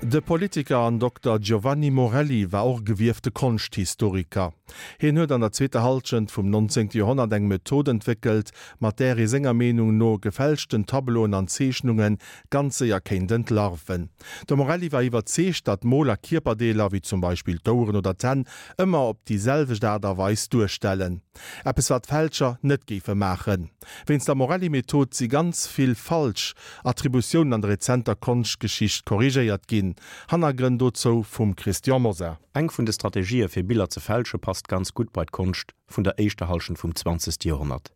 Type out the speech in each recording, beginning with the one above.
De Politiker an Dokter Giovanni Morelli war och e gewiefte Konschthistoriker. Hien huet an der zweeter Hallschent vum 19. Joerhonnert eng Method entwéckelt, mat där ee senger Meenung no gefälschten Tableauen an Zeechnunge ganz séier kéint entlarven. De Morelli war iwwerzeegt, datt Moler Kierperdeeler, wéi zum Beispill d'Oueren oder d'Hänn, ëmmer op déi selwecht Aart a Weis duerstellen. Eppes wat Fälscher net géife maachen. Wéinst der Morelli-Method si ganz vill falsch Attributiounen an der rezenter Konschtgeschicht korrigéiert ginn. Hannergrënn dozou vum Christian Mosar. Eng vun de Strategië fir Biller ze fälsche passt ganz gutt bei d'Konscht vun der éischter Hallschent vum zwanzegste Joerhonnert.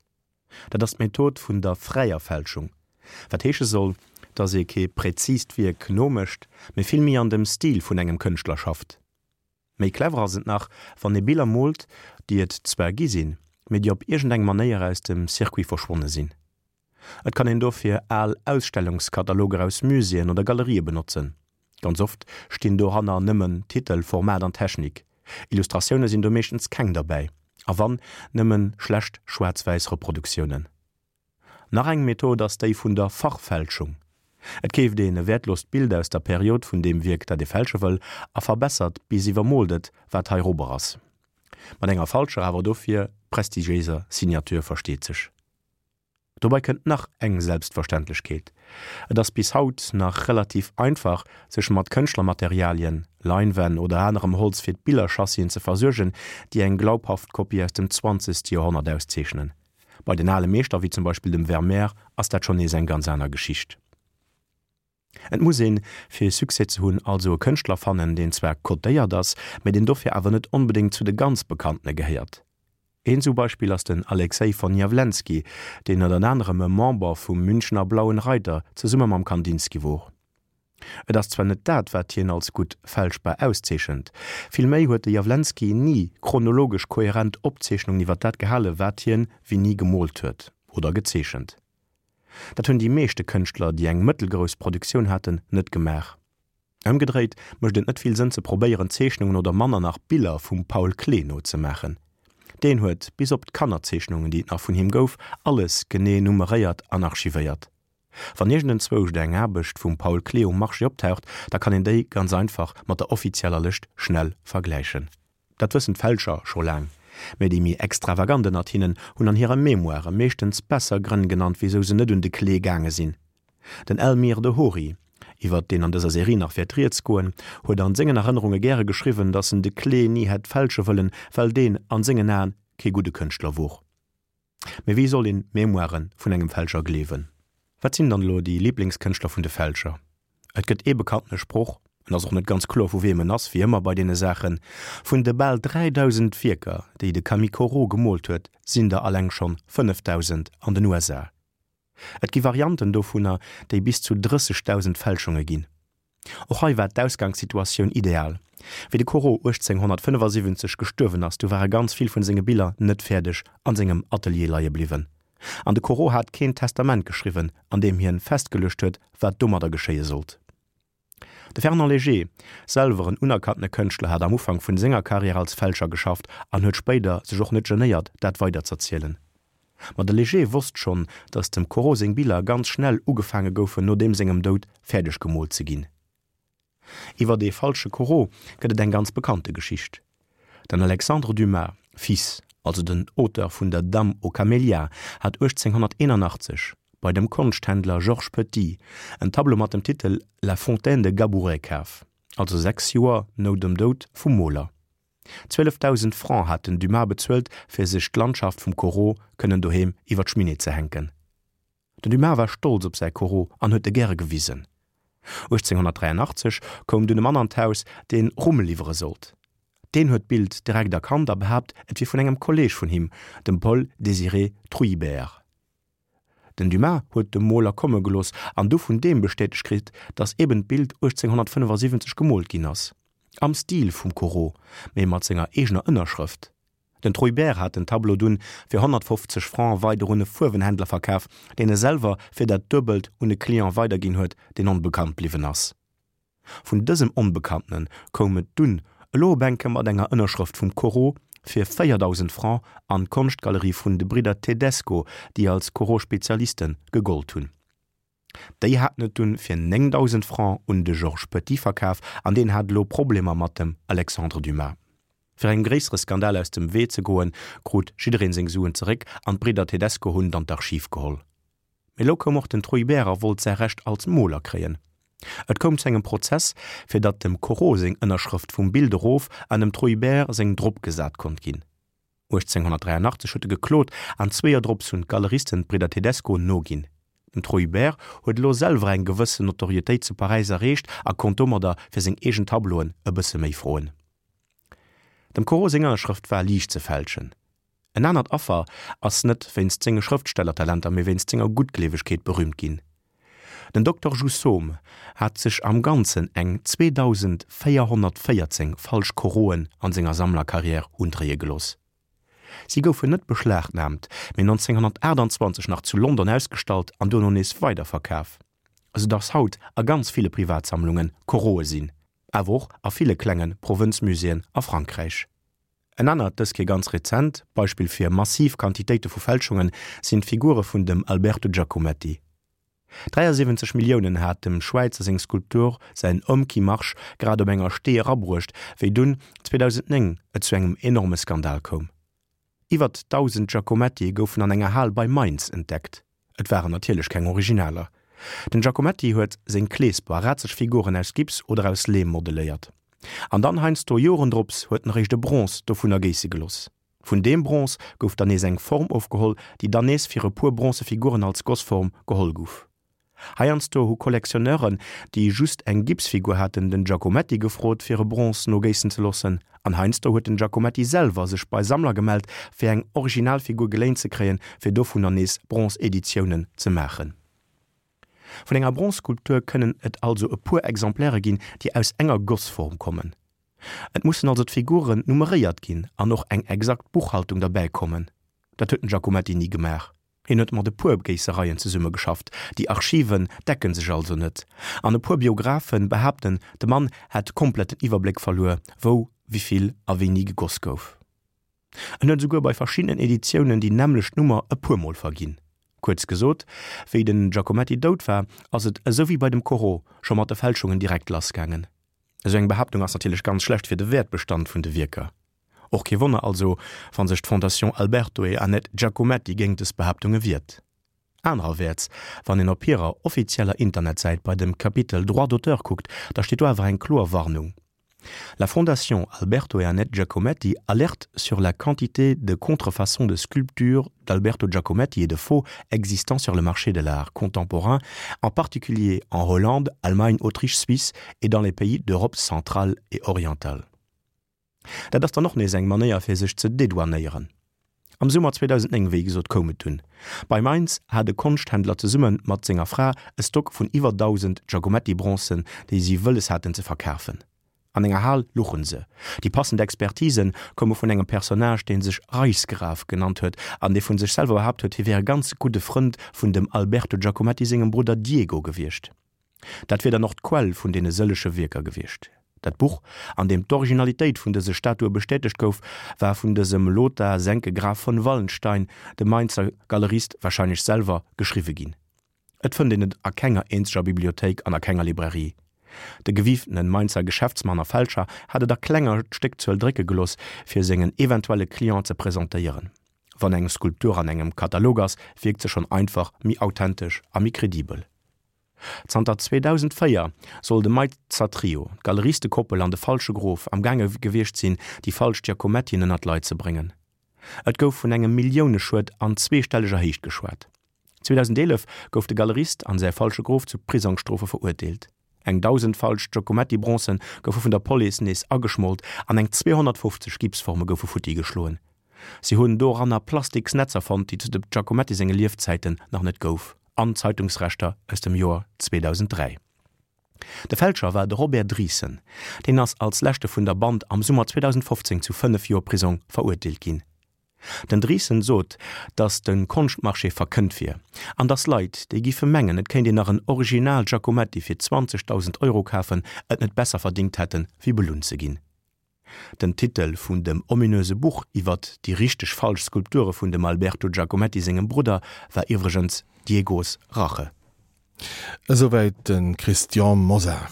Dat ass d'Method vun der fräier Fälschung, wat heesche soll, datt ee kee präzist Wierk nomécht, mee vill méi an dem Stil vun engem Kënschtler schafft. Méi clever ass et nach, wann ee Biller moolt, déi et zwar gi sinn, mee déi op iergendeng Manéier aus dem Circuit verschwonne sinn. Et kann een dofir al Ausstellungskataloger aus Muséeën oder Galerië benotzen. Ganz oft stinn doranner nëmmen Titel, Format an Technik. Illustratioune sinn do meeschtens keng derbäi, a wann, nëmme schlecht schwaarz-wäiss Reproduktiounen. Nach eng Method ass déi vun der Fachfälschung. Et keeft een e wäertlost Bild aus der Period vun deem Wierk, dat ee fälsche wëll, a verbessert bis iwwermoolt et, wat heirobber ass. Mat enger falscher, awer dofir prestigiéiser Signature, versteet sech. Dobei kënnt nach eng Selbstverständlechkeet, Et ass bis haut nach relativ einfach, sech mat Kënschtlermaterialien, Leinwänn oder anerem Holz fir d'Billerchassien ze versuergen, déi eng glaubhaft Kopie aus dem zwanzegste Joerhonnert auszeechnen. Bei den ale Meeschter, wéi zum Beispill dem Vermeer, ass dat schonn nees eng ganz aner Geschicht. Et muss een, fir Succès ze hunn, also e Kënschtler fannen, deen zwar cotéiert ass, mä deen dofir awer net onbedéngt zu de ganz Bekanntene gehéiert. Een esou Beispill ass den Alexej von Jawlensky, deen ënnert anerem e Member vum Münchener Blauen Reiter zesumme mam Kandinsky wor. Et ass zwar net dat, wat hien als gutt fälschbar auszeechent, villméi huet de Jawlensky ni chronologesch kohärent Opzeechnungen iwwer dat gehale wat hien wéini gemoolt huet oder gezeechent. Dat hunn déi meeschte Kënschtler, déi eng mëttelgrouss Produktioun haten, net gemaach. Ëmgedréit mécht et net vill Sënn ze probéieren Zeechnungen oder manner nach Biller vum Paul Klee nozemaachen. Deen huet, bis op d'Kannerzeechnungen déi et nach vun him gouf, alles genee nummeréiert an archivéiert. Wann iergendenzwousch eng Aarbecht vum Paul Klee um Marché optaucht, da kann een déi ganz einfach mat der offizieller Lëscht schnell vergläichen. Dat wëssen d'Fälscher scho laang, mä déi méi extravagant ënnert hinnen hunn an hire Memoire meeschtens besser Grënn genannt, wisou se net un de Klee gaange sinn. Den Elmyr de Hory, iwwert deen an dëser Serie nach wäert rieds goen, huet an sengen Erënnerunge gäre geschriwwen, datt en de Klee ni hätt fälsche wëllen, well deen an sengen Aen kee gudde Kënschtler wor. Mee wéi soll een d'Memoiren vun engem Fälscher gleewen? Wat sinn dann elo déi Liblingskënschtler vun de Fälscher? Et gëtt ee bekanntene Sproch, en ass och net ganz kloer vu weem en ass, wéi ëmmer bei deene Saachen, Vun de bal 3.000 Wierker, déi de Camille Corot gemoolt huet, sinn der alleng schonn 5.000 an den USA. Et gi Varianten dovunner, déi bis zu 30.000 Fälschunge ginn. Och hei war d'Ausgangssituatioun ideal. Wéi de Corot 1875 gestuerwen ass, du ware ganz vill vun senge Biller net fäerdeg an sengem Atelier leie bliwwen. An de Corot hat keen Testament geschriwwen, an deem hien festgeluecht huet, wat domadder geschéie sollt. De Fernand Léger, selwer en unerkanntene Kënschtler, hat am Ufank vun senger Karriär als Fälscher geschafft an huet spéider sech och net genéiert, dat weiderz'erzielen. Ma de Léger wosst schonn, datt dem Corot seng Biller ganz schnell ugefaange goufen, no deem sengem Doud fäerdeg gemoolt ze ginn. Iwwer dee falsche Corot gëtt et eng ganz bekannte Geschicht. Den Alexandre Dumas, fils, also den Auteur vun der Dame aux camélias, hat 1881 bei dem Konschthändler Georges Petit en Tableau mat dem Titel La fontaine de Gabouret kaf, also 6 Joer no dem Doud vum Moler. 12.000 Francs hat den Dumas bezuelt, fir sech d'Landschaft vum Corot kënnen doheem iwwer d'Schminee ze hänken. Den Dumas war stolz op säi Corot an huet e gäre gewisen. 1883 koum dunn e Mann an d'Haus, deen Rumm liwwere sollt. Deen huet d'Bild direkt erkannt a behaapt, et wier vun engem Kolleeg vun him, dem Paul Désiré Trouillebert. Den Dumas huet de Moler komme gelooss an du vun deem bestätegt kritt, datt eben d'Bild 1875 gemoolt ginn ass, am Stil vum Corot, mee mat senger eegener Ënnerschrëft. Den Trouillebert hat den Tableau dunn fir 150 Francs weider un e Fuerwenhändler verkaf, deen e selwer fir dat Duebelt un e Client weiderginn huet, deen onbekannt bliwwen ass. Vun dësem Onbekanntene koum et dunn elo op enke mat enger Ënnerschrëft vum Corot fir 4.000 Francs an d'Konschtgalerie vun de Bridder Tedesco, déi als Corot-Spezialiste gegollt hunn. Déi haten et dunn fir 9.000 Francs un de Georges Petit verkaf an deen hat elo Problemer mat dem Alexandre Dumas. Fir engem gréissere Skandal aus dem Wee ze goen, krut jiddereen seng Suen zeréck an d'Bridder Tedesco hunn dann d'Archiv geholl. Mee elo koum och den Truibert a wollt säi Recht als Moler kréien. Et koum zu engem Prozess, fir datt dem Corot seng Ënnerschrëft vum Bild erof an dem Truibert seng drop gesat konnt ginn. 1883 huet e geklot an zwee Joer drops hunn d'Galeristen d'Bridder Tedesco noginn. Den Truibert huet elo selwer eng gewëssen Notorietéit zu Paräis erreecht a konnt domadder fir seng eegen Tableauen e bësse méi froen. Dem Corot seng Ënnerschrëft war liicht ze fälschen. En anert Affer ass net wéinst senge Schrëftstellertalenter, mee wéinst senger Guttgleewegkeet berüümt ginn. Den Dokter Jousseaume hat sech am Ganzen eng 2.414 falsch Coroten an senger Sammlerkarriär undréie gelooss. Si goufen net beschlagnaamt, mee 1928 nach zu London ausgestallt an duerno nees weiderverkaf, esou dass haut a ganz ville Privatsammlunge Corote sinn, awer och a ville klenge Provënzmuséeën a Frankräich. En anert, dës Kéier ganz rezent, Beispill fir massiv Quantitéite vu Fälschunge sinn d'Figure vun dem Alberto Giacometti. 73 Milliounen hat dem Schwäizer seng Skulptur säin Homme qui marche grad op enger Stee erabruecht, wéi dunn 2009 et zu engem enorme Skandal koum. Iwwert 1.000 Giacomettie goufen an enger Hal bei Mainz entdeckt. Et waren natierlech keng Originaler. Den Giacometti huet seng Kleesper a razeg Figuren aus Gips oder aus Leem modeléiert. An dann heiansdo Joren drops huet en eréischt e Bronze dovunner géisse geloss. Vun deem Bronze gouf dann nees eng Form ofgeholl, déi dann nees fir e puer bronze Figuren als Gossform geholl guff. Heiansdo hu Collectionneuren, déi just eng Gipsfigur haten, den Giacometti gefrot, fir e Bronze nogéissen ze loossen. An heiansdo huet den Giacometti selwer sech bei Sammler gemellt, fir eng Originalfigur geléint ze kréien, fir dovunner nees Bronze-Editiounen ze maachen. Vun enger Bronze-Skulptur kënnen et also e puer Exemplaire ginn, déi aus enger Gossform kommen. Et mussen also d'Figuren nummeréiert ginn an och eng exakt Buchhaltung derbäi kommen. Dat huet den Giacometti ni gemaach. Hien huet mat e puer Géissereien zesummegeschafft, déi Archiven decken sech also net, an e puer Biographe behaapten, de Mann hätt komplett den Iwwerbléck verluer, wou, wivill a wéini gegoss gouf. En huet esouguer bei verschiddenen Editiounen déi nämmlecht Nummer e puer Mol verginn. Kuerz gesot, wéi den Giacometti dout war, ass et, esou wéi bei dem Corot, scho mat de Fälschungen direkt lassgaangen. Esou eng Behaaptung ass natierlech ganz schlecht fir de Wäertbestand vun de Wierker. Och kee Wonner also, wa sech d'Fondation Alberto e Annette Giacometti géingt dës Behaaptunge wiert. Anererwäerts, wann een op hirer offizieller Internetsäit bei dem Kapitel Droits d'auteur kuckt, da steet do awer eng kloer Warnung, La Fondation Alberto et Annette Giacometti alerte sur la quantité de contrefaçons de sculptures d'Alberto Giacometti et de faux existant sur le marché de l'art contemporain, en particulier en Hollande, Allemagne, Autriche, Suisse et dans les pays d'Europe centrale et orientale. Dat ass dann och nees eng Manéier fir sech ze dedouanéieren. Am Summer 2009, wéi gesot, koum et dunn. Bei Mainz hat e Konschthändler zesumme mat senger Fra e Stock vun iwwer 1.000 Giacometti-Bronzen, déi si wëlles haten ze verkafen. An enger Hal luchen se. Déi passend Expertise koume vun engem Personnage, dee sech Reichsgraf genannt huet an dee vu sech selwer behaapt huet, hie wär e ganz gudde Frënd vun dem Alberto Giacometti sengem Brudder Diego gewiescht. Dat wier dann och d'Quell vun deene sëllege Wierker gewiescht. Dat Buch, an deem d'Originalitéit vun dëse Statue bestätegt gouf, war vun dësem Lothar Senke Graf von Wallenstein, dem Mainzer Galerist, warscheinlech selwer geschriwwe ginn. Et fënnt een et a kenger eenzeger Bibliothéik an a kenger Librairie. De gewiiftene Mainzer Geschäftsmann a Fälscher hat et a klenger Stéckzuel drécke gelooss, fir sengen eventuelle Client ze presentéieren. Wann eng Skulptur an engem Katalog ass, wierkt se schonn einfach méi authentesch a méi kredibel. Zanter 2004 soll de Mainzer Trio, d'Galeristekoppel an de falsche Grof, am gaange gewiescht sinn, déi falsch Giacomettien ënner d'Leit ze bréngen. Et gouf vun engem Milliouneschued an zweestelleger Héicht geschwat. 2011 gouf de Galerist an säi falsche Grof zu Prisongsstrofe verurteelt. Eng 1.000 falsch Giacometti-Bronzen goufe vun der Police nees ageschmolt an eng 250 Gipsforme goufe futti geschloen. Si hunn doranner plastiks Netzer fonnt, déi zu dem Giacometti senge Liefzäiten nach net gouf, an Zeitungsreschter aus dem Joer 2003. De Fälscher war de Robert Driessen. Deen ass als leschte vun der Band am Summer 2015 zu 5 Joer Prisong verurteelt ginn. Den Driessen sot, datt de Konschtmarché verkënnt wier an datt Leit, déi giffe mengen, et kéint een nach en Original Giacometti fir 20.000 Euro kafen, et net besser verdingt hätten, wéi belunn ze ginn. Den Titel vun dem ominöse Buch iwwert déi richteg falsch Skulpture vun dem Alberto Giacometti sengem Brudder war iwwregens Diegos Rache. Esouwäit de Christian Mosar.